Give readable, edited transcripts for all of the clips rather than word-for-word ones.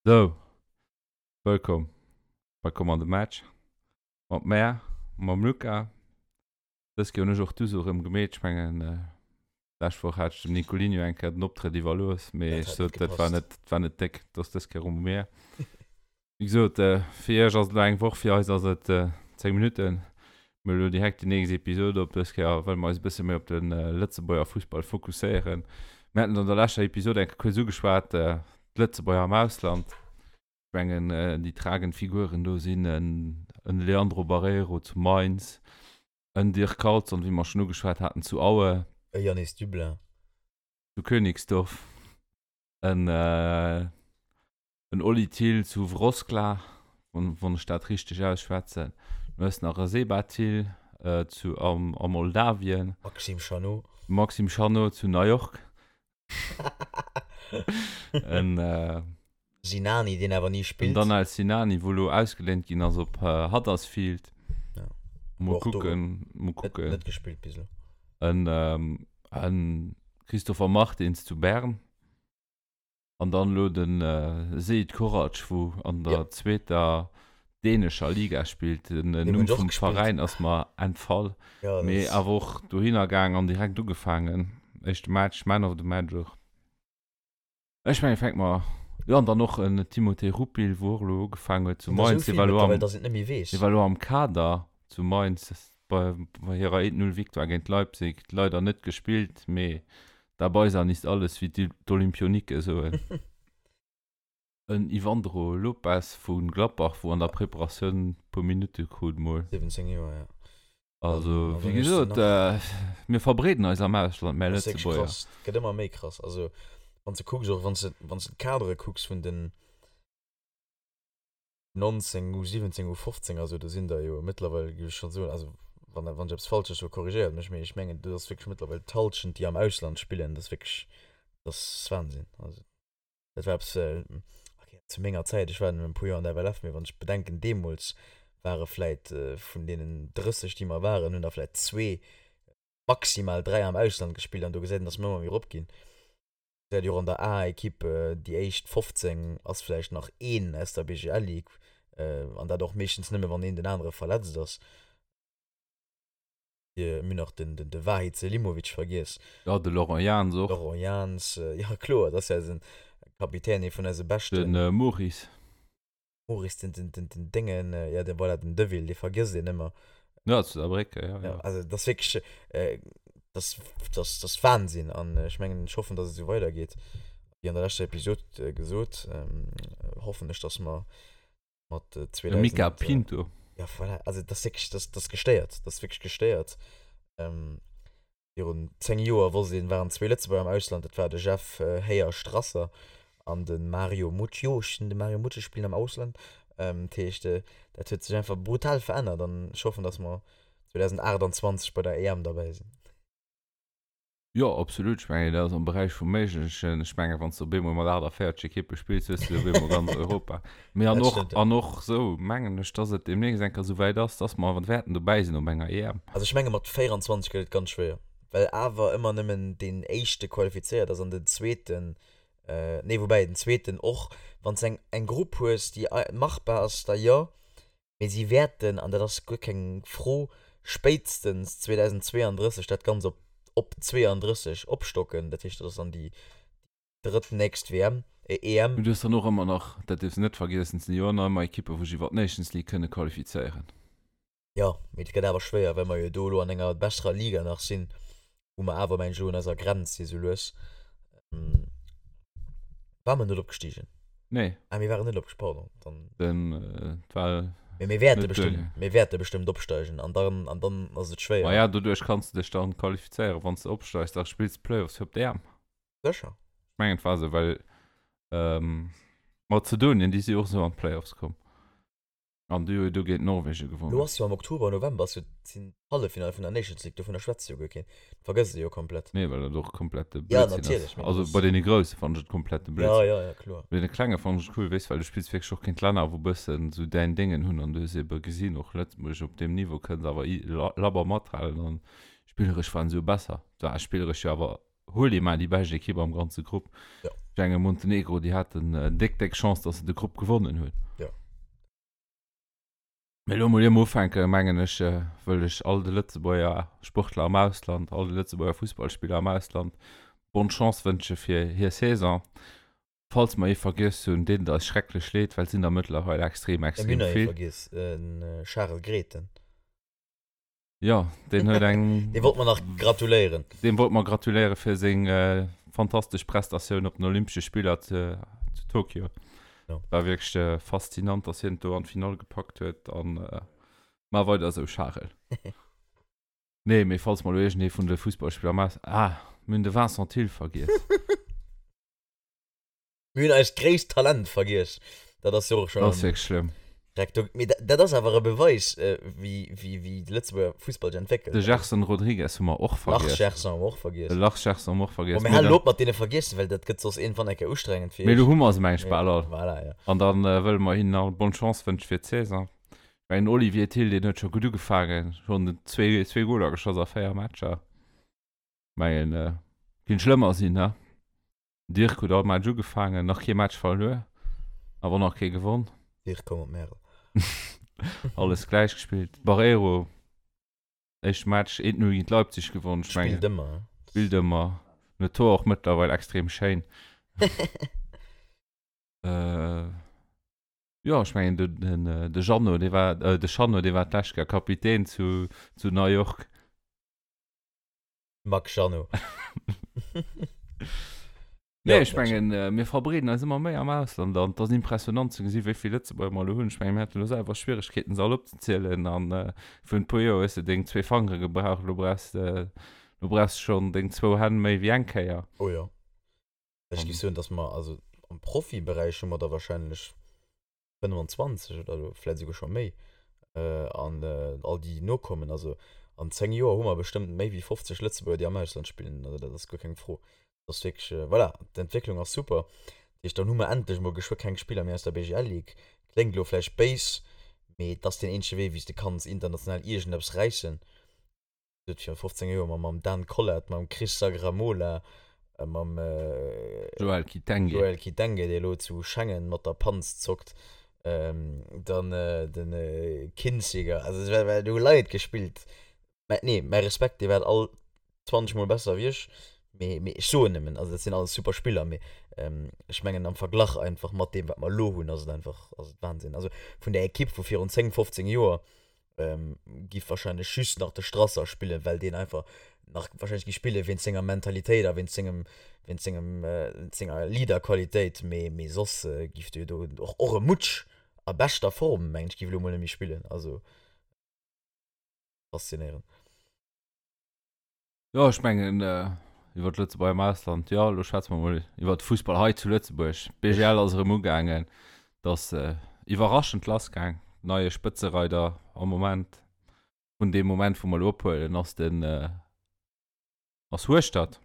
Sou, wëllkomm bei Komm an de Match mat mär, mam Luca. Dës Kéier hunn ech och d'Uso erëm gemeet. Ech mengen, d'lescht Woch hat ech dem Nicolinho eng Kéier den Optrëtt iwwerlooss, mee ech sot, dat war net, dat war net déck. Dat ass dës Kéier erëm u mir. Wéi gesot, fir iech ass et elo eng Woch, fir eis ass et 10 Minutten. Mir hu elo direkt déi nächst Episod op. Dës Kéier wëlle mer eis e bësse méi op de Lëtzebuerger Fussball fokusséieren. Mir haten et an der leschter Episod eng Kéier kuerz ugeschwat, d'Lëtzebuerger am Ausland. Ech mengen, déi tragend Figuren do sinn en Leandro Barreiro zu Mainz, en Dirk Carlson, wéi mer schonn ugeschwat haten, zu Aue. E Yanis Dublin. Zu Königsdorf, en En Oli Thill zu Wroclaw, wann ech dat richteg ausschwätzen. Du hues nach e Seba Thill zu a Moldawien. Maxime Chanot. Maxime Chanot zu New York. En Sinani, deen awer ni spillt. En Danel Sinani, wou elo ausgeléint ginn ass op Huddersfield. Mol kucken, mol kucken. Net gespillt bis elo. En Christopher Martins zu Bern. An dann elo den Seid Korac wou an der zweeter dänescher Liga spillt. Den Numm vum Veräin ass mer entfall, mee awer och dohinner gaang an direkt ugefaangen. Éischte Match, Man of the Match och. Ech mengen fänke mer, jo an dann och en Timothée Rupil wou och elo ugefaangen huet zu Mainz. Dee war elo am, dee war elo am Kader zu Mainz bei hirer 1-0 Victoire géint Leipzig. Leider net gespillt, mee Dabei sein ist alles, wéi d'Olympionike soen. En Ivandro Lopes vu Gladbach, wou an der Preparatioun puer Minutte krut mol. 17 Joer, ja. Also, wéi gesot, mir verbreeden eis am Ausland, mär Lëtzebuerger. Dat ass wierklech krass. Et gëtt ëmmer méi krass. Also, wann s de kucks, och wann s de, wann s de d'Kadere kucks vun den. 19, U17, U15 a sou, do sinn der jo mëttlerweil, géif ech schonn soen, also wann wann ech eppes Falsches soen, korrigéiert mech, mee ech mengen do ass wierklech mëttlerweil d'Hallschent déi am Ausland spillen, dat ass wierklech, dat ass Wahnsinn. Also dat war eppes, okay, zu menger Zäit, ech war nëmmen e puer Joer an der FLF, mee wann ech bedenken, deemools ware vläit vun deenen 30 déi mer waren, hunn der vläit zwee, maximal 3 am Ausland gespillt an do gesäit een, datt mer ëmmer méi erop ginn. Gesäit jo och an der A-Equipe, déi éischt 15 ass vläicht nach een aus der BGL Ligue, an dat och meeschtens nëmme wann een den anere verletzt ass. Mir hunn nach den de Vahid Selimovic vergiess. Jo, de Laurent Jans och. Laurent Jans, jo kloer, dat ass jo eisen Kapitän, ee vun eise beschten. De Maurice. Maurice, den, den, den, den Déngen, ja, den, voilà, den Deville, dee vergësst een ëmmer. Ja, zu Saarbrécken, ja, ja. Also, dat ass wierklech, äh, dat, dat, dat ass Wahnsinn. An ech mengen, ech hoffen, dass et esou weidergeet. Wéi an der leschter Episod gesot, ähm, hoffen ech, dass mer mat 2000. De Mica Pinto. Ja, voilà, also, dat ass wierklech, dat, dat ass gestéiert. Dat ass wierklech gestéiert. Ähm, Virun 10 Joer wosst een, waren zwee Lëtzebuerger am Ausland, dat war de Jeff Héier Strasser an de Mario Mutsch. Jo, ech sinn de Mario Mutsch, ech spillen am Ausland. Dat heescht, dat huet sech einfach brutal verännert an ech hoffen, datt mer 2028 bei der EM derbäi sinn. Jo, absolut. Ech mengen, dat ass am Beräich vum Méiglechen. Ech mengen, wann s de op eemol mat 48 Ekippe spills, hues de op eemol ganz Europa. Mee an och, an och sou mengen ech, dass et deemnächst eng Kéier sou wäit ass, dass mer wäerten dobäi sinn op enger EM. Also ech menge mat 24 gëtt et ganz schwéier, well awer ëmmer nëmmen deen éischte qualifizéiert ass an den zweeten, nee woubäi den zweeten och, wann s eng eng Grupp hues déi machbar ass, da jo, mee si wäerten, an dat ass guer keng Fro, spéitstens 2032 dat Ganzt op op 32 opstocken, dat heescht dat ass dann déi drëttnächst WM, äh, EM. Mee du hues dann och ëmmer nach, dat dierfs de net vergiessen, et sinn jo ëmmer ëmmer Ekippen, wou sech iwwer d'Nations League kënne qualifizéieren. Jo, mee et gëtt awer schwéier, well mer jo do elo an enger besserer Liga nach sinn, wou mer awer, mengen ech, elo un eiser Grenz si sou lues. Ware mer net opgestigen? Nee. Ah, mir waren net opgestigen, pardon. Dann. Den, et war. Mee mir wäerte bestimmt, mir wäerte bestimmt opsteigen an dann, an dann ass et schwéier. Ma ja, doduerch kanns de dech dann qualifizéieren, wann s de opsteigs, da spills de Playoffs fir op d'EM. Sécher. Ech mengen et war esou, well Mazedonien, déi si och esou an d'Playoffs komm. An déi hu jo do géint Norwegen gewonnen. Lo ass jo am Oktober, November ass jo sinn d'Halleffinale vun der Nations League, dovunner schwätzt jo guer keen. Dat vergësst ee jo komplett. Nee, well dat och komplette Blödsinn ass. Ja, natierlech. Also bei deene Grousse fannen ech et komplette Blödsinn. Ja, ja, ja, kloer. Bei deene Klenge fannen ech et cool, weess, well du spills wierklech och géint Länner, wou bëssen esou däin Déngen hunn an du hues ebe gesinn, och Lëtzebuerg op deem Niveau kënnt awer labber mathalen an spilleresch waren se jo besser. War spilleresch jo awer Huel ee mar déi bescht Ekipp am ganze Grupp. Ja. Ech mengen Montenegro, déi haten déck, déck Chance, datt se de Grupp gewonnen hunn. Jo. Mee elo mol ier mer ufänken, mengen ech, wëll ech all de Lëtzebuerger Sportler am Ausland, all de Lëtzebuerger Fussballspiller am Ausland bonne Chance wënsche fir hir Saison. Falls mer ee vergiess hunn, deet et eis schrecklech leed, well et sinn der mëttlerweil extrem, Mir extrem hunn der ee vill. vergiess, den Charel Grethen. Jo, deen huet eng. Deem wollte mer nach gratuléieren. Deem wollte mer gratuléiere fir seng fantastesch Prestatioun op den Olympesche Spiller zu Tokio. Jo. War wierklech faszinant, dass hien et do an d'Finall gepackt huet. An maach weider esou, Charel. Nee, mee falls mer elo iergendee vun de Fussballspiller am Aus. Ah, mir hunn de Vincent Thill vergiess. Mir hunn eist gréisst Talent vergiess. Dat ass jo och schon. Dat ass wierklech schlëmm. Dreck do. Mee dat ass awer e Beweis, wéi, wéi, wéi de Lëtzebuerger Fussball sech entwéckelt. De Gerson Rodrigues hu mer och vergiess. Lars Gerson hu mer och vergiess. De Lars Gerson hu mer och vergiess. Bon, mir halen op mat deene vergiessen, well dat gëtt soss iergendwann eng Kéier ustrengend fir iech. Mee elo hu mer se, meng ech, bal all. Voilà, jo. An da wëlle mer hinnen all bonne Chance wënsche fir d'Saison. Ech mengen, den Olivier Thill, deen huet scho gutt ugefaangen, schonn zwee, zwee Goler geschoss a 4 Matcher. Mengen, kinnt schlëmmer sinn, he? Dirk huet all Match ugefaangen, nach kee Match verluer, awer nach kee gewonn. Dirk komm op Märel. Alles gläich gespillt. Barreiro, éischte Match 1-0 géint Leipzig gewonn. Ech mengen, Spillt ëmmer. Spillt ëmmer. Den Tor och mëttlerweil extrem schéin. Jo, ech mengen den, den, de Jeannot, dee war, de Jeannot, dee war d'lescht Kéier Kapitän zu, zu New York. Max Jeannot. Nee, ech mengen, mir verbreeden eis ëmmer méi am Ausland an et ass impressionant ze gesi wéi vill Lëtzebuerger mer elo hunn. Ech mengen, mir haten elo selwer Schwieregkeeten se all opzezielen an virun e puer Joer hues de deng zwee Fangere gebraucht, elo brauchs de, elo brauchs de schonn deng zwou Hänn méi wéi eng Kéier. Oh jo. Ech géif soen, datt mer, also am Profiberäich hu mer der wahrscheinlech 25 oder elo vläit esouguer scho méi, an all déi nokommen, also an 10 Joer hu mer bestëmmt méi wéi 50 Lëtzebuerger, déi am Ausland spillen, also dat ass guer keng Fro. Dat ass wierklech, voilà, d'Entwécklung ass super. Dat heescht, dann hu mer endlech emol geschwë keng Spiller méi aus der BGL Ligue. Kléngt elo vläicht béis, mee et ass deen eenzege Wee, wéi s de kanns international iergendeppes räissen. huet virun 15 Joer mam mam Dan Collart, mam Chris Sagramola, mam Joël Kitenge, Joël Kitenge, dee elo zu Schengen mat der Panz zockt, dann de Kinziger, also et war do hu Leit gespillt, mä nee, mäi Respekt, dir waart all 20 mol besser wéi ech, mee mee ech soen nëmmen, also dat sinn alles super Spiller, mee ech mengen am Verglach einfach mat deem wat mer elo hunn, ass et einfach, ass et Wahnsinn, also vun där Ekipp vu virun 10, 15 Joer giff wahrscheinlech just nach de Strasser spillen, well deen einfach nach wahrscheinlech gi spillen wéinst senger Mentalitéit a wéinst sengem wéinst sengem senger Leaderqualitéit, mee mee soss giff de do och och e Mutsch a beschter Form mengen ech giff elo mol net méi spillen, also faszinéierend. Jo, ech mengen iwwer d'Lëtzebuerger am Ausland, jo, elo schwätze mer mol iwwer de Fussball hei zu Lëtzebuerg. D'BGL ass erëm ugaangen, et ass iwwerraschend lassgaang. Neie Spëtzereider am Moment, vun deem Moment wou mer elo ophuelen, ass den ass Hueschtert.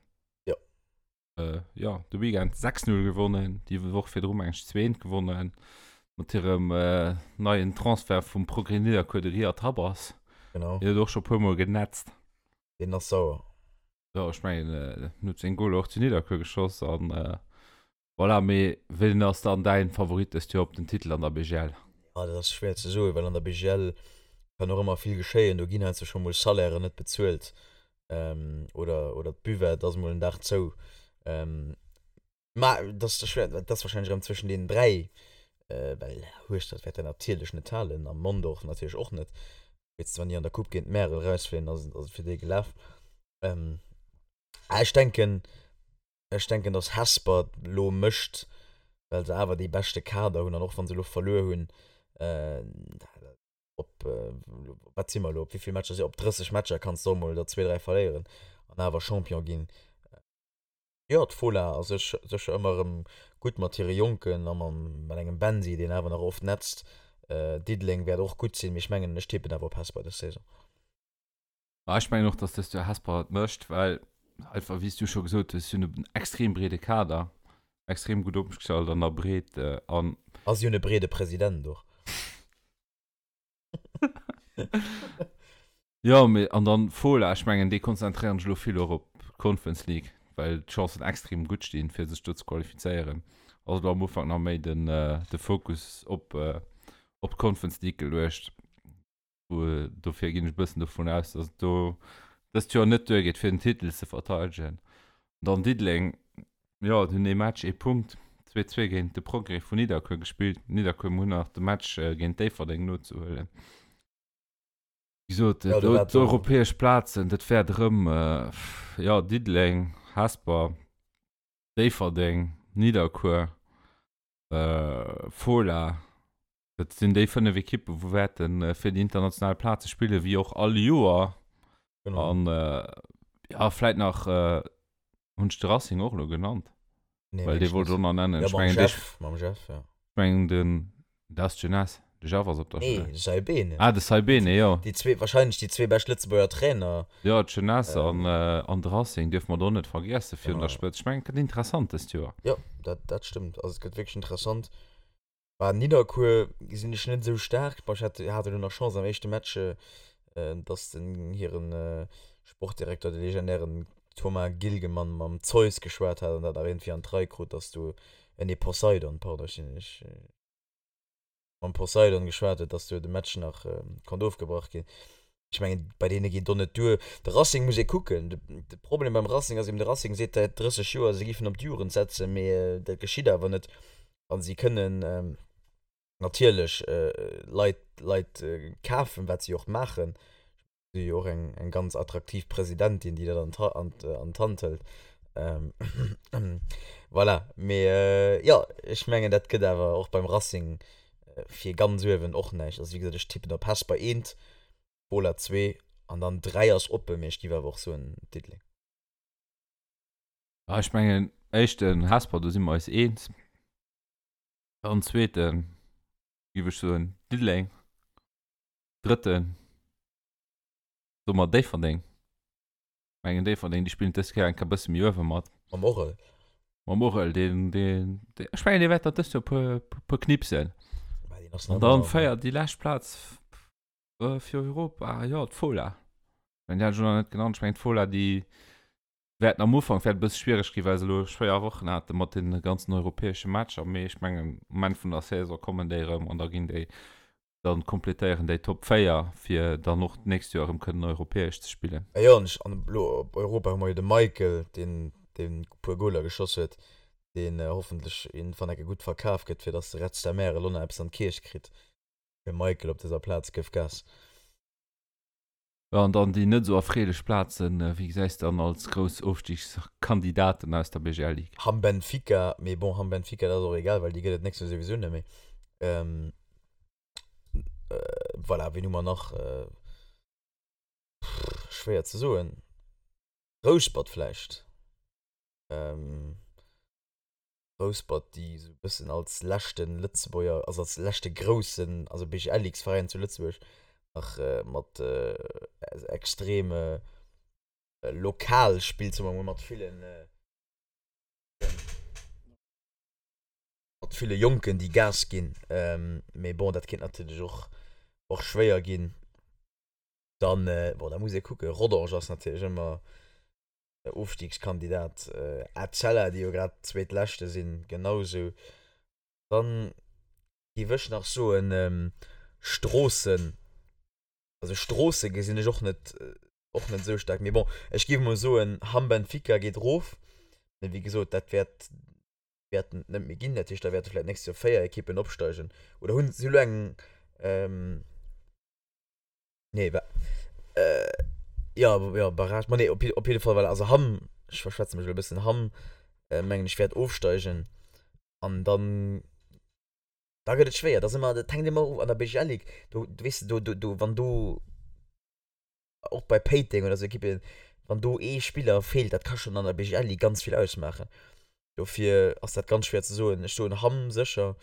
Jo. Jo, de Weekend 6, 0 gewonnen, déi Woch virdru meng ech 2, 1 gewonnen mat hirem neien Transfert vum Progrès Nidderkuer, de Riyad Habbas. Genau. Deen huet och scho puer mol genetzt. Deen ass sauer. Jo, ech mengen, en huet seng Goler och zu Nidderkuer geschoss an voilà. Mee wien ass dann däin Favorit dëst Joer op den Titel an der BGL? Ja, dat ass schwéier ze soen, well an der BGL kann och ëmmer vill geschéien. Do ginn heiansdo scho mol Salairen net bezuelt oder, oder d'Buvette ass mol en Dag zou. Ma dat ass schwéier, dat ass warscheinlech erëm zwëschen deenen 3, well Hueschtert wäert dat natierlech net halen a Mondorf natierlech och net. Spéitstens wann déi an der Coupe géint Märel erausfléien, ass et fir déi gelaf. Ech denken, ech denken, datt Hesper elo mécht, well se awer dee beschte Kader hunn an och wa se elo verluer hunn, op wat si mer elo, op wéi vill Matcher si, op 30 Matcher kanns de och mol der zwee, dräi verléieren an awer Champion ginn. Jo, d'Fola ass sécher ëmmer erëm gutt mat hire Jonken a mat engem Bensi, deen awer nach oft netzt. Diddeleng wäert och gutt sinn, mee ech mengen, ech tippen awer op Hesper dës Saison. Ma ech mengen och, dass dëst Joer Hesper et mécht, well einfach, wéi s du scho gesot hues, si hunn en extrem breede Kader, extrem gutt opgestallt an der Breet an. A si hunn e breede President och. Jo, mee an dann Fola, ech mengen déi konzentréieren sech elo vill och op d'Conference League. well d'Chancen extrem gutt stinn, fir sech do ze qualifizéieren, ass elo am Ufank nach méi den, de Fokus op, op d'Conference League geluecht. Dofir ginn ech e bëssen dovun aus, dass et do dëst Joer net duergeet, fir den Titel ze verteidegen. Dann Diddeleng, jo, déi hunn ee Match, ee Punkt, 2, 2 géint de Progrès vun Nidderkuer gespillt. Nidderkuer hunn nach de Match géint Déifferdeng nozehuelen. Wéi gesot, ja, d'europäesch Plazen, dat wäert erëm, jo, Diddeleng, Hesper, Déifferdeng, Nidderkuer, Fola, Dat sinn déi 5 Ekippen, wou wäerte fir déi international Plaze spillen, wéi och all Joer. Genau. An äh, ja, vläit nach äh, hunn ech de Racing och elo genannt. Nee, Well dee wollt ech och nach nennen. Ja, mam Jeff, mam Jeff, ja. Ech mengen den, dat ass d'Jeunesse, de Jeff ass op der Nee, de Saibene. Ah, de Saibene, jo. Déi zwee, wahrscheinlech déi zwee bescht Lëtzebuerger Trainer. Jo, d'Jeunesse ähm, an, äh, an de Racing dierfe mer do net vergiessen virun der Spëtzt. Ech mengen, et gëtt interessant dëst Joer. Jo, dat, dat stëmmt. Also et gëtt wierklech interessant. Bah Nidderkuer gesinn ech net esou staark. Bah ech hat hat elo nach Chance am éischte Match, dass den hiren Sportdirekter, de legendären Thomas Gilgemann mam Zeus geschwat hat an dat nach iergendwéi an d'Rei krut, dass do, nee Poseidon, pardon, ech sinn ech mam Poseidon geschwat huet, dass do de Match nach konnt ofgebrach ginn. Ech mengen, bei deene geet och net duer. De Racing muss ee kucken. De Problem beim Racing ass eben, de Racing seet säit 30 Joer, se géifen op d'Jugend setzen, mee dat geschitt awer net. A si kënnen natierlech Leit, Leit kafen, wat si och maachen. Si hu jo och eng, eng ganz attraktiv Presidentin, déi dat an an d'Hand hëlt. Voilà, mee jo, ech mengen, dat gëtt awer och beim Racing fir ganz uewen och näischt. Also wéi gesot, ech tippen op Hesper eent, Bola zwee an dann 3 ass oppen, mee ech giff awer och soen Diddeleng. Ah, ech mengen éischten Hesper, do si mer eis eens. Dann zweeten giff ech soen Diddeleng. Drëtten soe mer Déifferdeng. Mengen Déifferdeng, déi spillen dës Kéier eng Kéier bësse méi uewe mat. Mam Orel. Mam Orel, deen, deen, deen, ech mengen, dee wäert der dëst Joer puer, puer knipsen. An dann féiert déi lescht Plaz fir Europa, jo, d'Fola. Ech mengen, déi hat ech elo nach net genannt. Ech mengen, d'Fola, déi wäerten am Ufank wäert e bësse schwiereg ginn, well se elo schwéier Wochen hate mat deene ganzen europäesche Matcher. Mee ech mengen, um Enn vun der Saison kommen déi erëm an da ginn déi dann kompletéieren déi Top 4, fir dann och d'nächst Joer erëm kënnen europäesch ze spillen. A jo, an ech, an elo op Europa hu mer jo de Michael, deen, deen e puer Goler geschoss huet, deen hoffentlech iergendwann eng Kéier gutt verkaf gëtt, fir dass de Red Star Märel elo nach eppes an d'Kierch kritt. De Michael op dëser Plaz, gëff Gas. Jo, an dann déi net esou erfreelech Plazen, wéi gesäis de dann als grouss Ofstigskandidaten aus der BGL Ligue? Hamm Benfica, mee bon, Hamm Benfica, dat ass och egal, well déi gëtt et d'nächst Joer souwisou net méi. Voilà, wien hu mer nach? Schwéier ze soen. Rouspert vläicht. Rouspert, déi esou e bëssen als leschte Lëtzebuerger, also als leschte groussen, also BGL-Ligue-Veräin zu Lëtzebuerg nach mat extrem lokal spillt, soe mer emol, mat villen, mat ville Jonken, déi Gas ginn. Mee bon, dat kéint natierlech och, och schwéier ginn. Dann, bon, da muss ee kucken, Rodange ass natierlech ëmmer Ofstiegskandidat Etzella, déi jo grad Zweetleschte sinn, genau sou. Dann géif ech nach soen Stroossen, also Stroosse gesinn ech och net, och net esou staark. Mee bon, ech géif emol soen Hamm Benfica geet erof, mee wéi gesot, dat wäert, wäerten et net méi ginn. Dat heescht, da wäerte vläicht d'nächst Joer 4 Ekippen opsteigen oder hunn si elo eng, Nee, wa äh, ja, ja, Barrage, ma nee, op, op jidde Fall, well also Hamm, ech verschwätze mech elo e bëssen, Hamm, äh, mengen ech, wäert ofsteigen an dann, da gëtt et schwéier, da si mer, dat hänkt ëmmer of an der BGL Ligue, do, do weess de, do, do, do, wann do, och bei Péiteng oder sou Ekippen, wann do ee Spiller feelt, dat ka schonn an der BGL Ligue ganz vill ausmaachen. Dofir ass dat ganz schwéier ze soen. Ech soen Hamm sécher,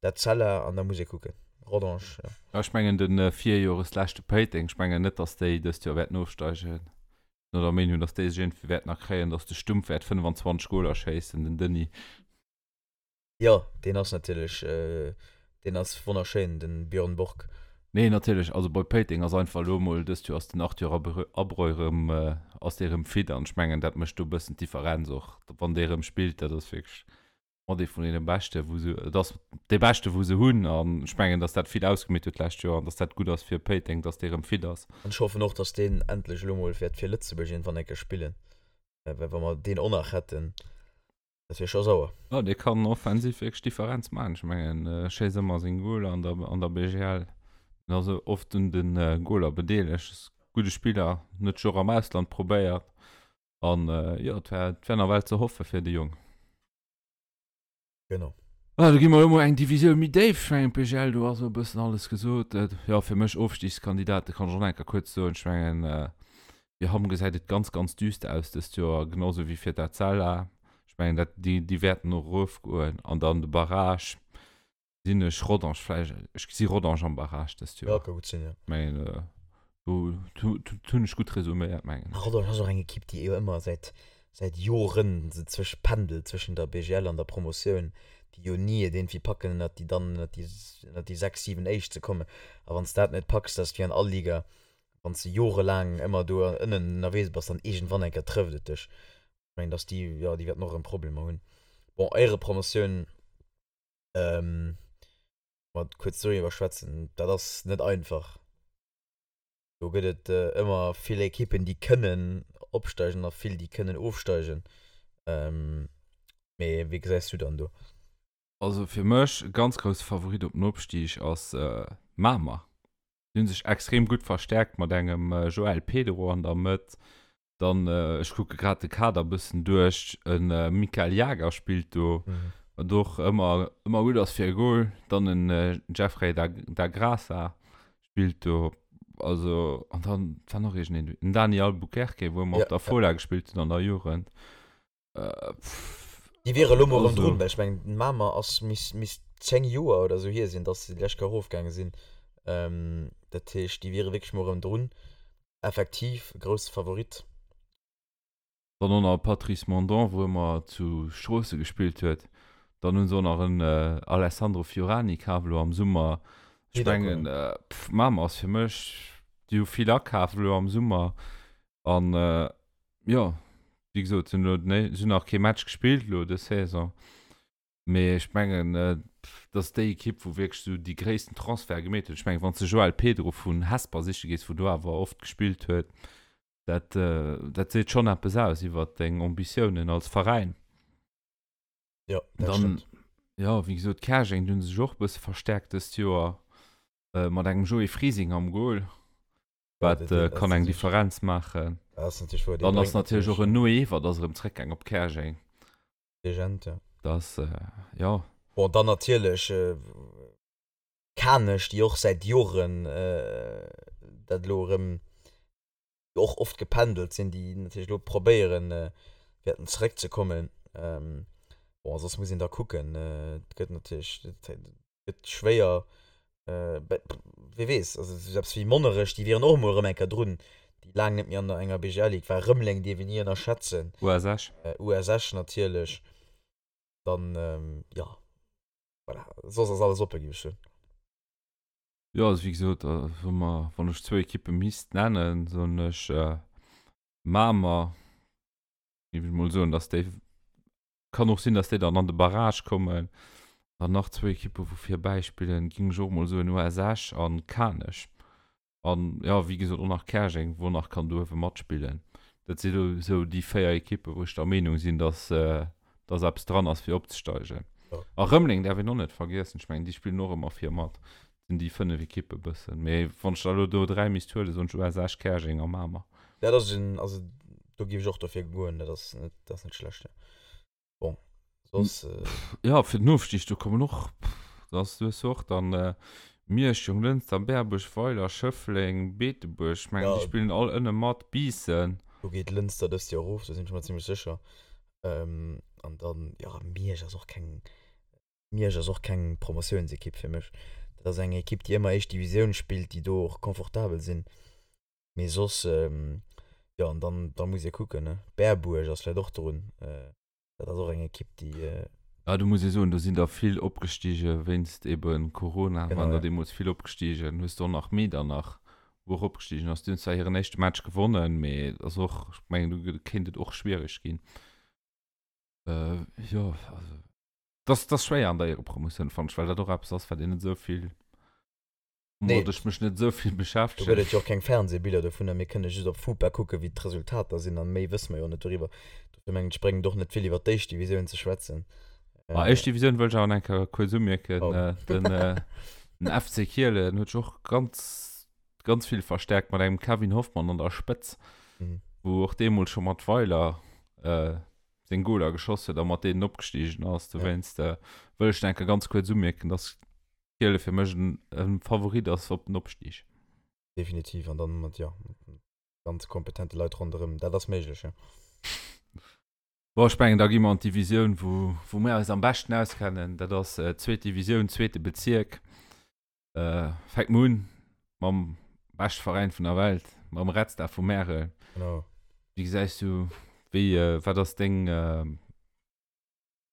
Etzella an da muss ee kucken. Rodange, jo. Ja, ech mengen de Virjoresleschte Péiteng, ech mengen net, datt déi dëst Joer wäerten ofsteigen. Ech sinn der Meenung, datt déi sech iergendwéi wäerten erkréien, datt de Stumpf wäert 25 Goler schéissen, den Denis. Jo, deen ass natierlech, deen ass wonnerschéin, de Björn Borg. Nee, natierlech, also bei Péiteng ass einfach elo emol, dëst Joer ass den Arthur Abreu erëm, ass dee erëm fit an ech mengen, dat mécht do e bëssen d'Differenz och, wann dee erëm spillt, dat ass wierklech mat ee vun deene Beschte wou se, et ass dee Beschte wou se hunn an ech mengen, datt dat vill ausgemeet huet d'lescht Joer an datt dat gutt ass fir Péiteng, datt dee erëm fit ass. An ech hoffen och, datt deen endlech elo mol wäert fir Lëtzebuerg iergendwann eng Kéier spillen, well wa mer deen och nach hätten, dat wier scho sauer. Jo, dee kann offensiv wierklech d'Differenz maachen. Ech mengen, e schéisst ëmmer seng Goler an der, an der BGL. En ass oft un de Goler bedeelegt. Ass e gudde Spiller, huet sech och am Ausland probéiert. An jo, et wär, et wär nawell ze hoffe fir de Jong. Genau. Ah, do gi mer elo mol eng Divisioun méi déif. Ech mengen, d'BGL, do ass elo e bëssen alles gesot. Jo, fir mech Ofstigskandidaten kann ech och nach eng Kéier kuerz soen. Ech mengen, fir Hamm gesäit et ganz, ganz düster aus dëst Joer, genau sou wéi fir d'Etzella. Ech mengen, dat, déi, déi wäerten och erofgoen. An dann de Barrage gesinn ech Rodange vläicht, ech gesi Rodange am Barrage dëst Joer. Ja, ka gutt sinn, jo. Ech mengen, do, do, do hunn ech gutt resuméiert, mengen ech. Rodange ass och eng Ekipp, déi jo ëmmer säit säit Joren se zwësch pendelt zwëschen der BGL an der Promotioun, déi jo ni et iergendwéi packen ënnert déi dann ënnert déi ënnert déi 6, 7 éischt ze kommen. A wann s dat net packs, dat ass wéi an all Liga, wann s de jorelaang ëmmer do ënnen ënnerwees bass, dann iergendwann eng Kéier trëfft et dech. Ech mengen, dass déi, jo, déi wäerten och erëm Problemer hunn. Bon, Éierepromotioun, mat kuerz doriwwer schwätzen, dat ass net einfach. Do gëtt et ëmmer vill Ekippen, déi kënnen opsteigen a vill, déi kënnen ofsteigen. Mee wéi gesäis du dann do? Also fir mech e ganz grousse Favorit op den Opstig ass Mamer. Déi hu sech extrem gutt verstäerkt mat engem Joel Pedro an der Mëtt. Dann, ech kucke grad de Kader e bëssen duerch, e Mikael Jager spillt do, wat och ëmmer, ëmmer gutt ass fir e Gol. Dann en Jeffrey da, da Graça spillt do. Also, an dann war nach iergendeen, den Dani Albuquerque, wou ëmmer op der Fola gespillt huet an der Jugend. Déi wiere elo mol erëm drun, well ech mengen, den Mamer ass, misst, misst 10 Joer oder esou hier sinn, dass se déi lescht Kéier erofgaange sinn. Dat heescht, déi wiere wierklech mol erëm drun. Effektiv e grousse Favorit. Dann och nach e Patrice Mondon, wou ëmmer zu Stroosse gespillt huet. Dann hu se och nach en Alessandro Fiorani kaf elo am Summer. Ech mengen, Mamer ass fir mech, déi hu vill akaf elo am Summer an jo, wéi gesot, se hunn elo den, se hunn nach kee Match gespillt elo dës Saison. Mee ech mengen, dat ass déi Ekipp, wou wierklech esou déi gréissten Transferte gemeet huet. Ech mengen, wann s de Joel Pedro vun Hesper siche gees, wou do awer oft gespillt huet, dat, dat seet schonn eppes aus iwwer deng Ambitiounen als Veräin. Jo, dat Dann, stëmmt. jo, wéi gesot, Käerjeng, déi hu sech och e bësse verstäerkt dëst Joer mat engem Joé Frising am Gol. Wat kann eng Differenz maachen. Dann ass natierlech och en Noé Ewert ass erëm zréckgaang op Käerjeng. Legend, ja. Das, jo. Bon, dann natierlech Kanech, déi och säit Joren dat elo erëm, déi och oft gependelt sinn, déi natierlech elo probéieren wäerten zeréckzekommen. Bon, soss muss een da kucken. Et gëtt natierlech, et gëtt schwéier. Wie weess, also esou eppes wéi Monnerech, déi wieren och emol erëm eng Kéier drun, déi laang net méi an der enger BGL-Ligue war. Rëmeleng dierf een ni ënnerschätzen. US Esch. US Esch natierlech. Dann, jo, voilà, soss ass alles oppe, géif ech soen. Jo, also wéi gesot, wa mer, wann ech zwou Ekippe misst nennen, soen ech Mamer, géif ech mol soen, datt déi Kann och sinn, dass déi dann an de Barrage kommen. Dann nach zwou Ekippe wou vir bäispillen, géing ech och mol soen US Esch an Kanech. An jo, wéi gesot och nach Käerjeng, wou nach kann do uewe matspillen. Dat si lo sou déi 4 Ekippe wou ech der Meenung sinn, dass dass eppes dran ass fir opzesteigen. A Rëmeleng däerf een och net vergiessen, ech mengen déi spillen och ëmmer vir mat. Dat sinn déi 5 Ekippe bëssen. Mee wann ech der elo do 3 misst huelen, soen ech US Esch, Käerjeng a Mamer. Dat ass en, also do géif ech och dofir goen, dat ass net, dat ass net schlecht, jo. Bon, soss. Jo, fir den Ofstig, do kommen och, da ass, du hues jo och dann Miersch, Jonglënster, Berbuerg, Weiler, Schëffleng, Beetebuerg, ech mengen, déi spillen all ënne mat, Biissen. Do geet Lënster dëst Joer erof, do sinn ech mer zimlech sécher. An dann, jo, Miersch ass och keng, Miersch ass och keng Promotiounsekipp fir mech. Dat ass eng Ekipp, déi ëmmer éischt Divisioun spillt, déi do och confortabel sinn. Mee soss, jo, an dann, da muss ee kucken, ne. Berbuerg ass vläicht och drun. Dat ass och eng Ekipp, déi. Ja, do muss ee soen, do sinn der vill opgestige wéinst ebe Corona, Genau, waren der ja. deemools vill opgestigen. Hues de och nach Medernach, wou och opgestigen ass. Déi hunn zwar hiren éischte Match gewonnen, mee et ass och, ech mengen, do kéint et och schwiereg ginn. Äh, jo, also, dat ass schwéier an der Éierepromotioun, fannen ech, well dat och eppes ass, wat een net esou vill Nee. Woumat ech mech net esou vill Do beschäftegen. gëtt et jo och keng Fernsehbiller dovunner, mir kënne just op FUPA kucken, wéi d'Resultater sinn, an méi wësse mer jo net doriwwer. Dofir mengen ech, bréngt et och net vill, iwwer d'éischt Divisioun ze schwätzen. Ma éischt Divisioun wëll ech awer nach eng Kéier kuerz umierken. Oh. Den, den FC Kielen huet sech och ganz, ganz vill verstärkt mat engem Kevin Hoffmann an der Spëtz, Mhm. wou och deemools scho mat Weiler seng Goler geschoss huet a mat deenen opgestigen ass. Dowéinst wëll ech nach eng Kéier ganz kuerz umierken, dass Kiele fir mech en Favorit ass op den Opstieg. Definitiv, an dann mat, jo, mat ganz kompetente Leit ronderëm, dat ass méiglech, jo. Bon, ech mengen, da gi mer an d'Divisioun, wou, wou mir eis am beschten auskennen. Dat ass d'zweet Divisioun, zweete Bezierk. Fänke mer un mam beschte Veräin vun der Welt, mam Red Star vu Märel. Genau. Wéi gesäis du, wéi, wat ass deng,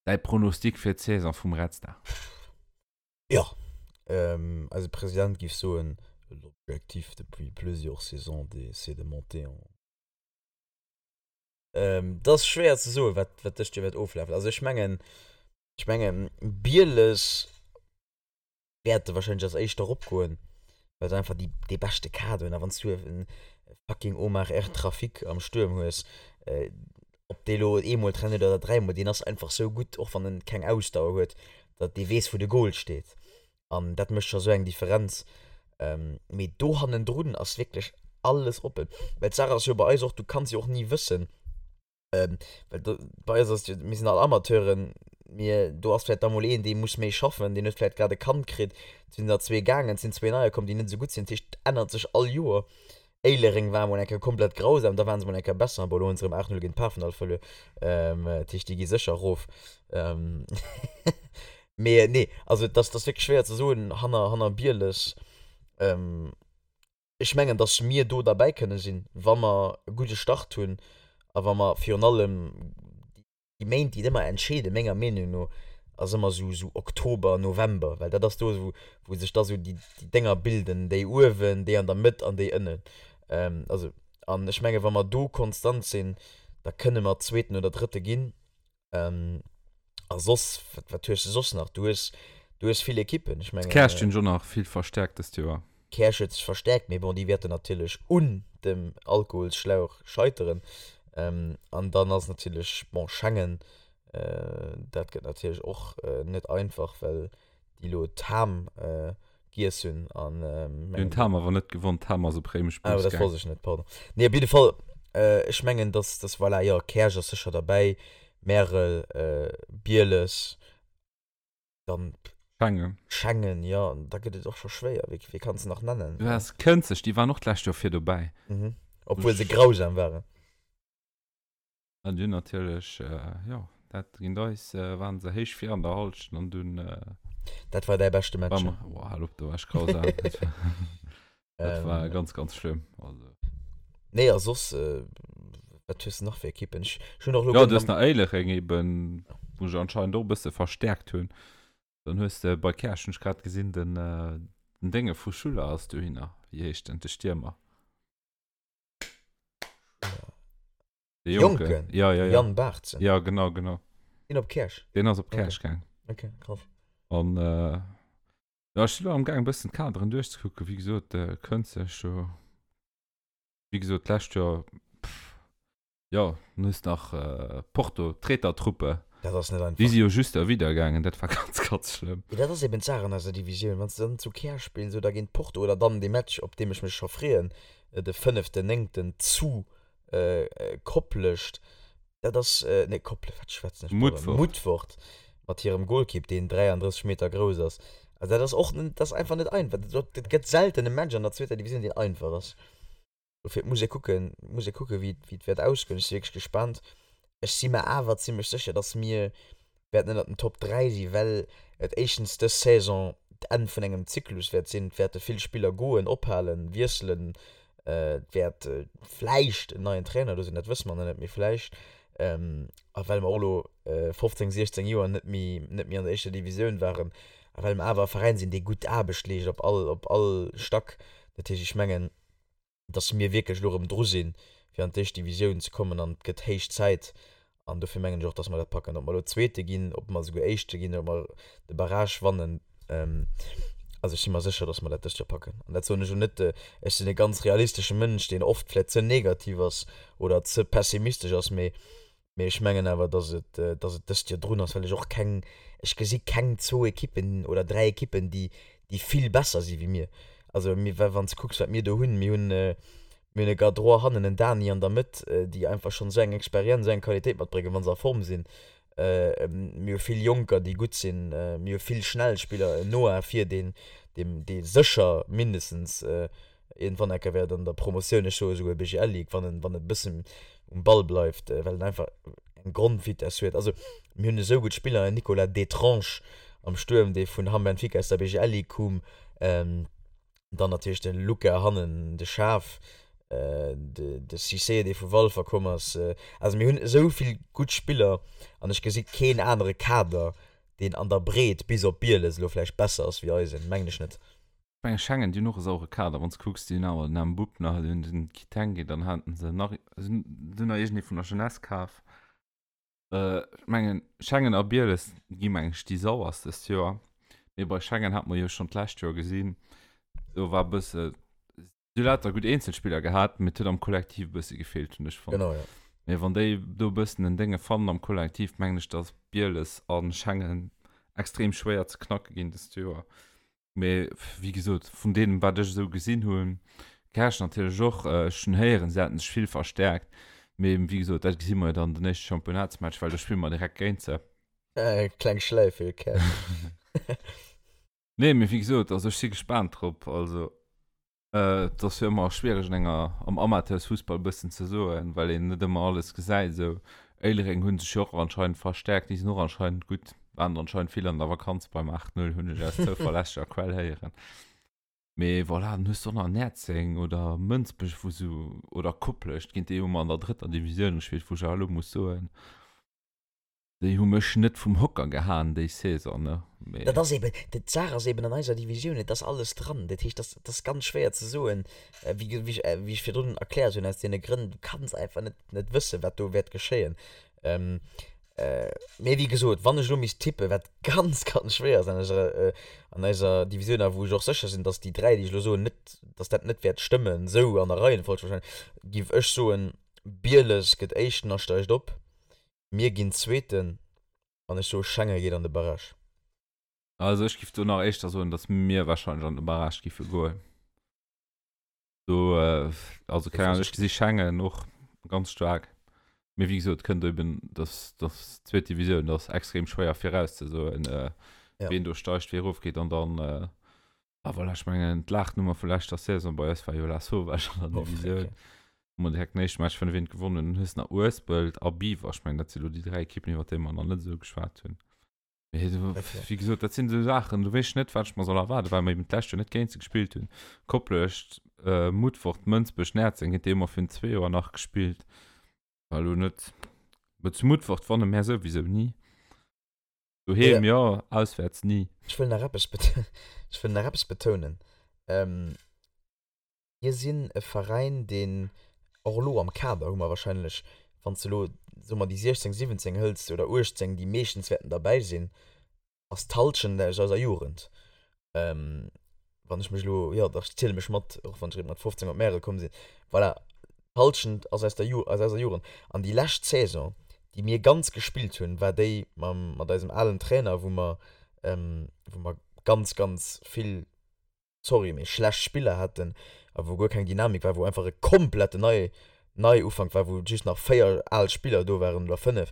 däi Pronostic fir d'Saison vum Red Star? Jo, eise President géif soen, L'objectif depuis plusieurs saisons, c'est de monter en. Et ass schwéier ze soen, wat dëst Joer wäert oflafen. Also ech mengen, ech mengen Bieles wäerte wahrscheinlech als Éischter eropgoen, well se einfach déi, dee beschte Kader hunn. A wann s du e fucking Omar R. Trafic am Stuerm hues, ob dee lo eemol trennt oder dräimol, deen ass einfach sou gutt, och wann en keng Ausdauer huet, datt dee weess, wou de Goal steet. An dat mécht scho sou eng Differenz. Mee do hannendrun ass wierklech alles oppen. Well d'Saach ass jo bei eis och, du kanns jo och ni wëssen, Well do, bei eis ass jo, mir sinn all Amateuren, mir, do ass vläicht da mol een, dee muss méi schaffen, deen huet vläicht grad e Kand kritt, et sinn der zwee gaangen, et sinn zwee neier komm, déi net esou gutt sinn. Dat heescht, et ännert sech all Joer. Éilereng war mol eng Kéier komplett grausam, da ware se mol eng Kéier besser, bon, elo hunn se erëm 8, 0 géint Pafendall verluer, dat heescht, déi gi sécher erof. Mee nee, also et ass, et ass wierklech schwéier ze soen hanner, hanner Bieles. Ech mengen, dass mir do derbäi kënne sinn, wa mer e gudde Start hunn a wa mer virun allem déi Méint, déi et ëmmer entscheeden, menger Meenung no, ass ëmmer esou esou Oktober, November, well dat ass do, wou wou sech da sou déi déi Dénger bilden, déi uewen, déi an der Mëtt an déi ënnen. Also, an ech menge wa mer do konstant sinn, da kënne mer Zweeten oder Drëtte ginn. A soss, wat, wat hues de soss nach? Du hues, du hues vill Ekippen. Ech mengen. D'Käerch hunn ech och nach vill verstäerkt dëst Joer. D'Käerch huet sech verstäerkt, mee bon, déi wäerten natierlech un dem Alkoholsschlauch scheiteren. An dann ass natierlech, bon, Schengen, dat gëtt natierlech och net einfach, well déi elo d'Ham giess hunn an Déi hunn d'Ham awer net gewonn, d'Ham ass op Réimech Ah, Bus dat gaang. wosst ech net, pardon. Nee, op jidde Fall, ech mengen, dass, dass voilà, jo, Käerch ass sécher derbäi, Märel, Bieles, dann Schengen. Schengen, jo, an da gëtt et och scho schwéier. Wie, wie kanns de nach nennen? Du has Kënzeg, déi waren och d'lescht Joer vir dobäi. Mhm. Obwuel se grausam waren. An dunn natierlech, jo, dat géint eis waren se héich vir an der Halschent an dunn. Dat war däi beschte Match. Boah, hal op, do war ech grausam. Dat war, dat war ganz, ganz schlëmm. Also. Nee, a soss, wat hues de nach fir Ekippen? Ech hunn och elo. Jo, du hues nach Éilereng eben, wou se anscheinend och e bësse verstäerkt hunn. Dann hues de bei Käerch, hunn ech grad gesinn, den, den Dénge vu Schuller ass dohinner. Wéi heescht en? De Stiermer. De Jonken. Jonken? Ja, ja, ja. Jan Baartzen. Ja, genau, genau. Deen op Käerch? Deen ass op Käerch okay. gaang. Okay, krass. An äh, ja, ech sinn elo am Gaang e bëssen d'Kaderen duerchzekucken. Wéi gesot, äh, Kënzeg do, wéi gesot, d'lescht Joer, pff, ja, dann hues nach äh, Porto, d'Tretertruppe. Dat ass net einfach. Déi si jo just erwider gaangen, dat war ganz, ganz schlëmm. Mee dat ass eben d'Saach an eiser Divisioun, wann s de dann zu Käerch spills oder géint Porto oder dann dee Match, op deem ech mech scho freeën, de fënneften Néngten zu Koplescht, dat ass, nee Kople, wat schwätzen ech, pardon, Mutfert mat hirem Golkipp, deen 33 Meter grouss ass. Also dat ass och, dat ass einfach net einfach. Dat gëtt selten e Match an der zweeter Divisioun, deen einfach ass. Dofir, et muss ee kucken, muss ee kucken, wéi et wäert ausgoen. Ech si wierklech gespaant. Ech si mer awer zimmlech sécher, datt mir wäerten ënnert den Top 3 sinn, well et éischtens dës Saison d'Enn vun engem Zyklus wäert sinn. Et wäerte vill Spiller goen, ophalen, wiesselen. Et wäert vläicht en neien Trainer do sinn, dat wësse mer nach net, mee vläicht. A well mer och elo 15, 16 Joer net méi, net méi an der éischter Divisioun waren a well mer awer e Veräin sinn, dee gutt Aarbecht leescht op all, op all Stack. Dat heescht, ech mengen, dass mir wierklech elo erëm dru sinn, fir an d'éischt Divisioun ze kommen an et gëtt héich Zäit. An dofir mengen ech och, dass mer dat packen. Ob mer elo Zweete ginn, ob mer esouguer Éischte ginn, ob mer de Barrage wannen, also ech si mer sécher, dass mer dat dëst Joer packen. An dat soen ech elo net, ech sinn e ganz realistesche Mënsch, deen oft vläicht ze negativ ass oder ze pessimistesch ass, mee Mee ech mengen awer, dass et, dass et dëst Joer drun ass, well ech och keng, ech gesi keng zwou Ekippen oder dräi Ekippen, déi, déi vill besser si wéi mir. Also mir, wa wann s de kucks, wat mir do hunn, mir hunn, mir hunn e Gadrois hannen, en Dani an der Mëtt, déi einfach schonn esou eng Experienz, esou eng Qualitéit matbréngen, wa se a Form sinn. Mir hu vill Jonker, déi gutt sinn. Mir hu vill schnell Spiller, en Noah vir, deen, dee, dee sécher mindestens Iergendwann enker wäert an der Promotioun, ech soe souguer BGL Ligue, wann en, wann en e bëssen um Ball bleift, well en einfach eng Grondvitesse huet. Also mir hunn esou gutt Spiller, en Nicolas Detrange am Stuerm, dee vun Hamm Benfica aus der BGL Ligue koum, dann natierlech de Luca hannen, de Schaaf, de, de Cissé, dee vu Walfer komm ass. Also mir hunn esou vill gutt Spiller an ech gesi keen anere Kader, deen an der Breet bis op Bieles elo vläicht besser ass wéi eisen, mengen ech net. Ech mengen Schengen, déi hunn och e sauere Kader, wann s de kucks, déi hunn awer den Mboup nach, déi hunn den Kitenge, dann haten se nach, se hunn nach iergendee vun der Jeunesse kaf. Ech mengen Schengen a Bieles gi meng ech déi sauerst dëst Joer, mee bei Schengen hat mer jo schonn d'lescht Joer gesinn, do war e bësse, si hu lauter gutt Eenzelspiller gehat, mee et huet am Kollektiv e bësse gefeelt, hunn ech fonnt. Genau, jo. Mee wann déi do e bëssen en Dénge fannen am Kollektiv, mengen ech, datt Bieles a Schengen extrem schwéier ze knacke ginn dëst Joer. Mee wéi gesot, vun deem, wat ech esou gesinn hunn, Käerch natierlech och, ech hunn héieren, se hätten sech vill verstäerkt. Mee wéi gesot, dat gesi mer jo dann den éischte Championnatsmatch, well do spille mer direkt géint se. Kleng Schläif fir Käerch. Nee, mee wéi gesot, also ech si gespaant drop. Also Et ass jo ëmmer schwiereg an enger, am Amateursfussball e bëssen ze soen, well een net ëmmer alles gesäit esou. Éilereng hu sech jo och anscheinend verstäerkt, déi sinn och anscheinend gutt, waren anscheinend vill an der Vakanz beim 8, 0, hunn ech aus zouverlässeger Quell héieren. Mee voilà, dann hues de och nach Näerzeng oder Mënsbech, wou sou, oder Koplescht, géint déi hu mer an der drëtter Divisioun gespillt, wou ech awer elo muss soen, Déi hu mech net vum Hocker gehaen déi Saison, ne? Mee. Dat ass eben, d'Saach ass eben an eiser Divisioun, et ass alles dran. Dat heescht, dat ass ganz schwéier ze soen, wéi wéi ech virdrun erkläert hunn, aus deene Grënn, du kanns einfach net net wëssen, wat do wäert geschéien. Mee wéi gesot, wann ech elo misst tippen, wat ganz, ganz schwéier ass an eiser an eiser Divisioun a wou ech och sécher sinn, datt déi 3, déi ech elo soen, net, datt dat net wäert stëmmen, esou an der Reihenfolg wahrscheinlech, géif ech soen, Bieles gëtt Éischten a steigt op. Mir ginn Zweeten an ech soe Schengen geet an de Barrage. Also ech giff do nach éischter soen, datt mir wahrscheinlech an de Barrage giffe goen. Do, also keng Ahnung, ech gesi Schengen och ganz staark. Mee wéi gesot, kënnt eben, datt datt d'zweet Divisioun, dat ass extrem schwéier virauszesoen, wien do steigt, wie erofgeet an dann, ah voilà, ech mengen d'Laachnummer vu leschter Saison bei eis war jo Lasauvage an der Divisioun. Hu mer direkt den éischte Match 5 eent gewonnen. Dann hues de nach Uespelt a Biwer. Ech mengen, dat si lo déi 3 Ekippen, iwwer déi mer nach net esou geschwat hunn. Mee do, wéi gesot, dat sinn esou Saachen, do weess ech net, wat ech mer soll erwaarden, well mer eben d'lescht Joer net géint se gespillt hunn. Koplescht, Mutfort, Mënsbech, Näerzeng, géint déi hu mer virun zwee Joer nach gespillt. War elo net, mä zu Mutfort wanne mär souwisou ni. Doheem jo, auswäerts ni. Ech wëll nach eppes, ech wëll nach eppes betounen. Mir sinn e Veräin, deen och elo am Kader hu mer wahrscheinlech, wann s de elo, soe mer, déi 16, 17 hëls oder 18, déi meeschtens wäerten derbäi sinn, ass d'Hallschent aus eiser Jugend. Wann ech mech elo, jo dach, ech ziele mech mat, och wann ech eréischt mat 15 op Märel komm sinn. Voilà, d'Hallschent ass aus der Ju, aus eiser Jugend. An déi lescht Saison, déi mir ganz gespillt hunn, war déi mam, mat eisem alen Trainer, wou mer, wou mer ganz, ganz vill, sorry, mee schlecht Spiller haten a wou guer keng Dynamik war, wou einfach e kompletten Nei Neiufank war, wou just nach 4 al Spiller do waren oder 5.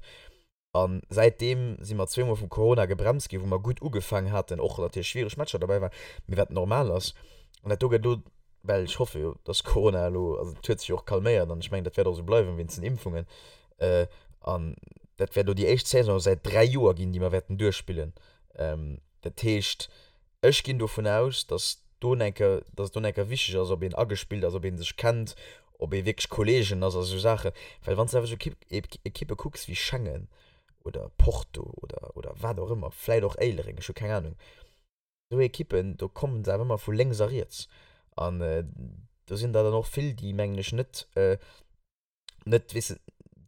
A säitdeem si mer zweemol vum Corona gebremst ginn, wou mer gutt ugefaangen haten, och natierlech schwiereg Matcher derbäi waren, mee wat normal ass. An dat do gëtt elo, well ech hoffe jo, dass Corona elo, also et huet sech jo och calméiert an ech mengen, dat wäert och esou bleiwen wéinst den Impfungen, an dat wäert elo déi éischt Saison säit 3 Joer ginn, déi mer wäerten duerchspillen. Dat heescht, Ech ginn dovun aus, dass do enker, dass et do enker wichteg ass, ob een agespillt ass, ob ee sech kennt, Ob ee wierklech Kolleegen ass a sou Saachen. Well wann s de awer sou Ekippe kucks wéi Schengen oder Porto oder, oder wat och ëmmer, vläit och Éilereng, ech hu keng Anung, esou Ekippen, do kommen se awer ëmmer vu lénks a riets. An do sinn der dann och vill, déi, mengen ech, net, net, weess de,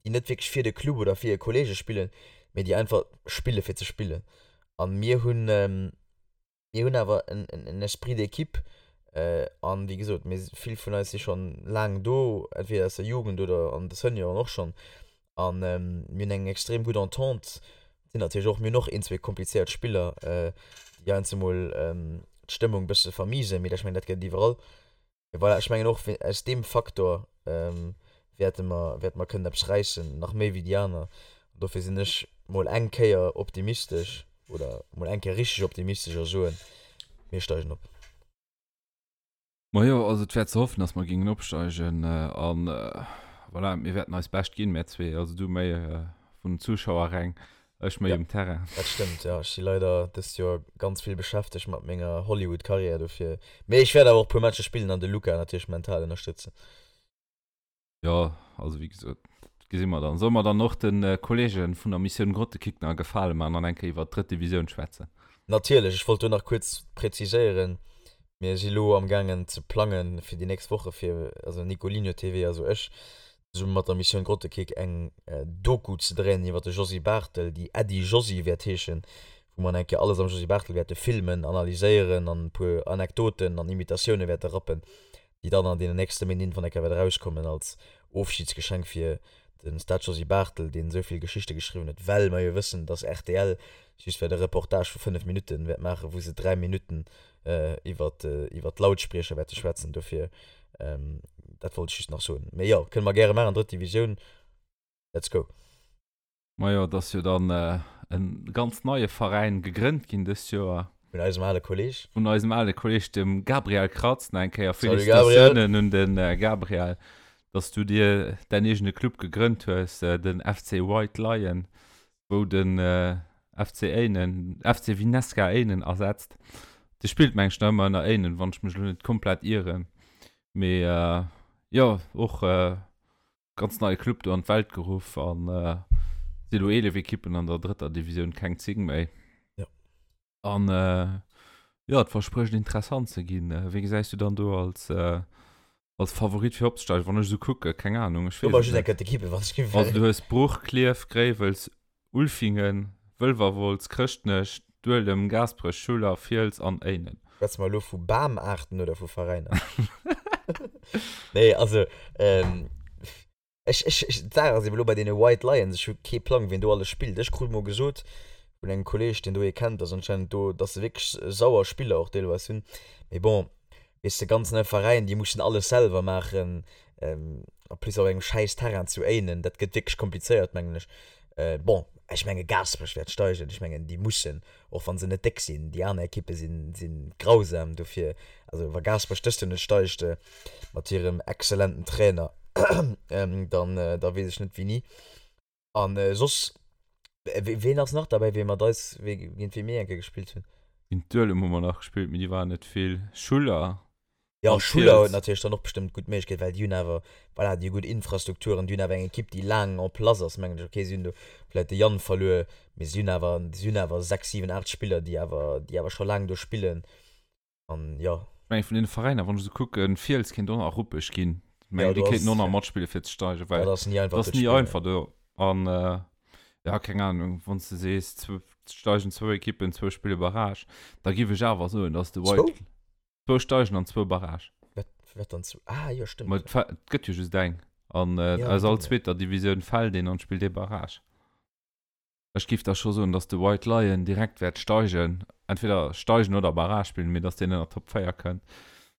déi net wierklech fir de Club oder fir hir Kolleege spillen, mee déi einfach spille fir ze spillen. A mir hunn, Mir hunn awer en Esprit d'équipe an wéi gesot, mir vill vun eis si schonn laang do, entweder aus der Jugend oder an de Senioren och schonn an mir hunn eng extrem gutt Entente. Sinn natierlech och, mir hunn och een, zwee komplizéiert Spiller, déi heiansdo mol d'Stëmmung e bësse vermiesen, mee ech mengen dat gëtt et iwwerall. Mee voilà, ech mengen och aus deem Faktor wäerte mer, wäerte mer kënnen eppes räissen, nach méi wéi déi aner. An dofir sinn ech mol eng Kéier optimistesch oder mol eng Kéier richteg optimistesch a soen, mir steigen op. Majo, also et wär ze hoffen, dass mer géingen opsteigen. An voilà, mir wäerten eist Bescht ginn, mär zwee. Also du méi vun den Zuschauerräng, Ech méi um Terrain. Dat stëmmt, jo. Ech si leider dëst Joer ganz vill beschäftegt mat menger Hollywood-Karriär, dofir. Mee ech wäert awer och e puer Matcher spillen an de Luca natierlech mental ënnerstëtzen. Jo, also wéi gesot, dat gesi mer dann. Solle mer dann och de Kollege vun der Missioun Grottekick nach e Gefale maachen an eng Kéier iwwert d'drëtt Divisioun schwätzen? Natierlech. Ech wollt do nach kuerz präziséieren, Mir si lo amgaangen ze plangen fir déi nächst Woche fir, also Nicolinho TV, also ech, zesumme mat der Missioun Grottekick eng Doku ze dréinen iwwer de Josy Barthel, déi Äddi Josy wäert heeschen, wou mer eng Kéier alles am Josy Barthel wäerte filmen, analyséieren an e puer Anekdoten an Imitatioune wäerte rappen, déi dann an deenen nächste Méint irgendwann eng Kéier wäert erauskommen als Ofschidsgeschenk fir de Stade Josy Barthel, deen esou vill Geschichte geschriwwen huet, well mer jo wëssen, dass rtl just wäert e Reportage vu 5 Minutten wäert maachen, wou se 3 Minutten iwwer iwwer d'Lautspriecher wäerte schwätzen. Dofir, dat wollt ech just nach soen. Mee jo, kënne mer gäre maachen, drëtt Divisioun, let's go. Majo, et ass jo dann e ganz neie Veräin gegrënnt ginn dëst Joer. Vun eisem ale Kolleg. Vun eisem ale Kolleg, dem Gabriel Kratz. Nach eng Kéier Félicitatiounen un de Gabriel, dass du dir däin eegene Club gegrënnt hues, den FC White Lion. wou den FC Éinen, FC Vinesca Éinen ersetzt. De spillt meng ech nach ëmmer ënner Éinen, wann ech mech elo net komplett ieren. Mee jo, och ganz neie Club do an d'Welt geruff an si elo 11 Ekippen an der drëtter Divisioun, keng 10 méi. Jo. An jo, et versprécht interessant ze ginn. Wéi gesäis du dann do als als Favorit fir opzesteigen? Wann ech esou kucke, keng Ahnung, ech weess et net. D'Ekippe, wann ech Also du hues Bruch, Klierf, Gréiwels, Ulfingen, Wëlwerwolz, Chrëschtnech, Duelem, Gaasperech, Schuller, Fiels an Éinen. Schwätze mer elo vu Bamaarten oder vu Veräiner? Nee, also Ech, ech, ech, d'Saach ass eben elo bei deene White Lions, ech hu kee Plang, wien do alles spillt. Ech krut mol gesot vun engem Kolleg, deen do ee kennt, dass anscheinend do, dass se wierklech sauer Spiller och deelweis hunn. Mee bon, weess de, ganz nei Veräin, déi mussen alles selwer maachen, en plus op engem schäiss Terrain zu Éinen, dat gëtt wierklech komplizéiert, mengen ech. Bon, ech menge Gaasperech wäert steigen, ech mengen déi mussen, och wa se net déck sinn, déi aner Ekippe sinn, sinn grausam, dofir, also wa Gaasperech dëst Joer net steigt mat hirem exzellenten Trainer, dann, da weess ech net wéini. A soss, ween ass nach derbäi, wee mat eis, wee, géint wee mir eng Kéier gespillt hunn? Géint Duelem hu mer nach gespillt, mee déi waren net vill. Schuller Jo, An Schuller huet natierlech dann och bestëmmt gutt Méiglechkeet, well déi hunn awer, voilà, déi hu gutt Infrastrukturen, déi hunn awer eng Ekipp, déi laang en place ass, mengen ech. Ok, si hunn do vläicht de Yann verluer, mee si hunn awer, si hunn awer 6, 7, 8 Spiller, déi awer, déi awer scho laang do spillen. An jo. Ech mengen, vun deene Veräiner, wann ech esou kucken, Fiels kéint och nach ruppeg ginn. Ech mengen, déi kéinten och nach matspille fir ze steigen, well dat ass ni einfach do ze spillen. Dat ass ni einfach do. An jo, keng Ahnung, wann s de sees, steigen zwou Ekippen, zwou spille Barrage, da giff ech awer soen, dass de White. Zwou? Zwou steigen an zwou Barrage. Wat, wat dann zwou? Ah, jo, stëmmt. Ma et gëtt jo just eng. An äh, ja, aus all zweeter Divisioun fält een an spillt ee Barrage. Ech giff da scho soen, dass de White Lion direkt wäert steigen. Entweder steigen oder Barrage spillen, mee dass deen ënner Top 4 kënnt.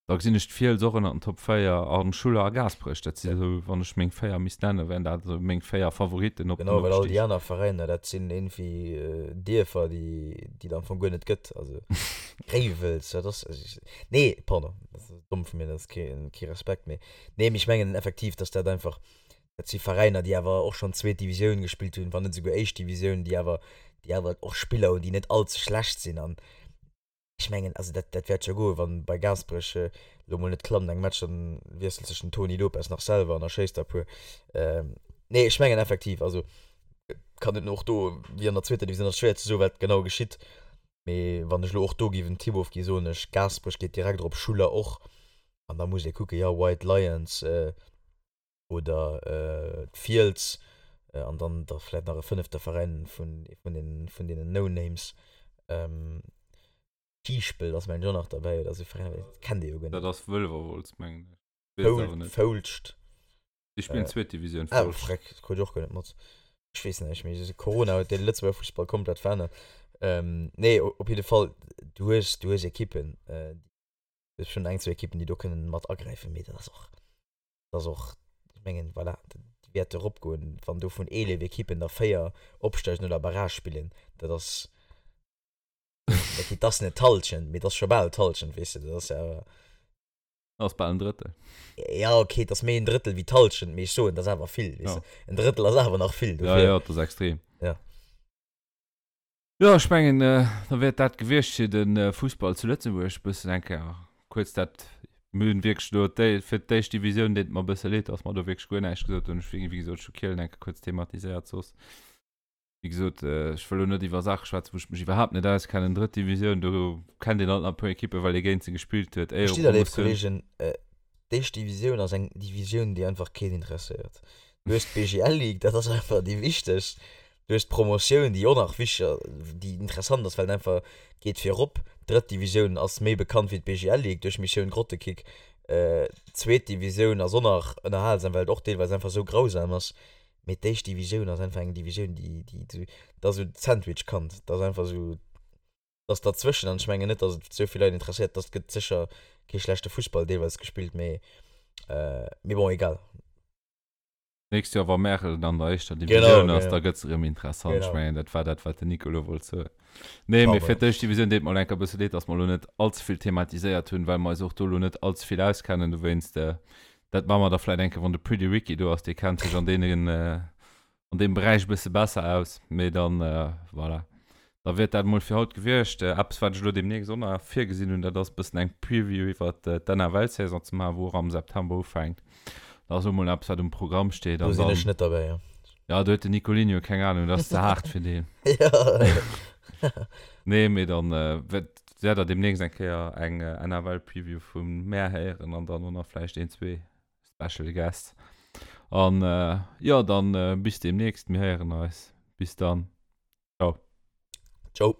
Da gesinn ech d'Fiels och ënner den Top 4 an Schuller a Gaasperech. Dat si sou, wann ech meng 4 misst nennen, wären dat esou meng 4 Favoritten op den Genau, well all déi aner Veräiner, dat sinn iergendwéi Dierfer, déi déi et am Fong guer net gëtt. Also Gréiwels, wat ass, nee, pardon, dat ass domm vu mir, dat ass kee kee Respekt, mee nee, mee ech mengen effektiv, dass dat einfach, dat si Veräiner, déi awer och schonn zweet Divisioun gespillt hunn, wann net esouguer éischt Divisioun, déi awer, déi awer och Spiller hunn, déi net all ze schlecht sinn an. Ech mengen, also dat, dat wäert scho goen, wann bei Gaasperech elo mol net klammt eng Match, dann wiesselt sech den Toni Lopez nach selwer an da schéisst der e puer. Nee, ech mengen effektiv, also kann et och do, wéi an der zweeter Divisioun, ass schwéier ze soen, wat genau geschitt. Mee wann ech elo och do géif en Tipp ofginn, soen ech, Gaasperech geet direkt erop, Schuller och. An da muss ee kucken, jo, White Lions, oder d'Fiels an dann da vläit nach e fënnefte Veräin vun vun den vun deenen No-Names. Kiischpelt ass mengen ech och nach derbäi oder esou Veräiner, dat kennt ee jo guer net. Dat ass Wëlwerwolz mengen ech, weess et awer net. Foulscht. Déi spillen zweet Divisioun, Foulscht. Ah freck, dat krut ech och guer net mat. Ech weess näischt méi, Corona huet de Lëtzebuerger Fussball komplett verännert. Nee, op jidde Fall, du hues du hues Ekippen, du hues schonn eng, zwou Ekippen, déi do kënnen mat agräifen, mee dat ass och Dat ass och, ech mengen, voilà, déi wäerte eropgoen, wann do vun 11 Ekippen der 4 opsteigen oder Barrage spillen. Dat ass, okay, dat ass net d'Hallschent, mee dat ass scho bal d'Hallschent, weess de, dat ass jo awer. Dat ass bal en Drëttel. Ja, okay, dat ass méi en Drëttel wéi d'Hallschent, mee ech soen, dat ass awer vill, weess de. En Drëttel ass awer nach vill, dofir. Ja, ja, dat ass extrem. Ja. Jo, ech mengen, da wäert dat gewiescht fir de Fussball zu Lëtzebuerg. Bëssen eng Kéier kuerz dat, mir hunn wierklech do déi, fir d'éischt Divisioun deet et mer e bësse leed, dass mer do wierklech guer näischt gesot hunn. Ech wéi gesot, ech hu Kielen eng Kéier kuerz thematiséiert, soss, wéi gesot, ech wëll elo net iwwer Saache schwätzen, wou ech mech iwwerhaapt net auskennen. Drëtt Divisioun, do kennt een alt nach e puer Ekippen, well ee géint se gespillt huet, Verstitt der, léif Éierepromotioun. Kollegen, d'éischt Divisioun ass eng Divisioun, déi einfach keen interesséiert. Du hues d'BGL Ligue, dat ass einfach déi wichtegst. Du hues d'Promotioun, déi och nach wichteg, déi interessant ass, well et einfach geet virop. D'drëtt Divisioun ass méi bekannt wéi d'BGL Ligue duerch Missioun Grottekick. D'zweet Divisioun ass och nach ënnerhalsam, well et och deelweis einfach esou grausam ass. Mee d'éischt Divisioun ass einfach eng Divisioun, déi, déi esou, dat ass esou d'Sandwich-Kand. Dat ass einfach esou, dat ass derzwëschen. An ech mengen net, datt et esou vill Leit interesséiert. Dat gëtt sécher kee schlechte Fussball deelweis gespillt, mee, mee bon, egal. D'nächst Joer, wa Märel an der éischter Divisioun ass, da gëtt se erëm interessant. Ech mengen, dat war dat, wat den Nico elo wollt soen. Nee, mee fir d'éischt Divisioun deet mer elo enker e bësse leed, datt mer elo net all ze vill thematiséiert hunn, well mer eis och do elo net all ze vill auskennen. Dowéinst, dat maache mer da vläicht eng Kéier, wann de Pretty Ricky do ass, dee kennt sech an deenen, an deem Beräich e bësse besser aus. Mee dann, voilà. Da wier dat emol fir haut gewiescht. Eppes, wat ech elo deemnächst och nach virgesinn hunn, dat ass e bëssen eng Preview iwwert d'NFL-Saison ze maachen, wou och am September ufänkt. Dat ass och emol eppes, wat um Programm steet. Do sinn ech net derbäi, jo. Ja, do huet den Nicolinho keng Ahnung, dat ass ze haart fir deen. Ja. Nee, mee dann wäert der deemnächst eng Kéier eng NFL-Preview vu mär héieren an dann och nach vläicht een, zwee Special Guests. An jo, dann bis deemnächst. Mir héieren eis. Bis dann. Ciao. Ciao.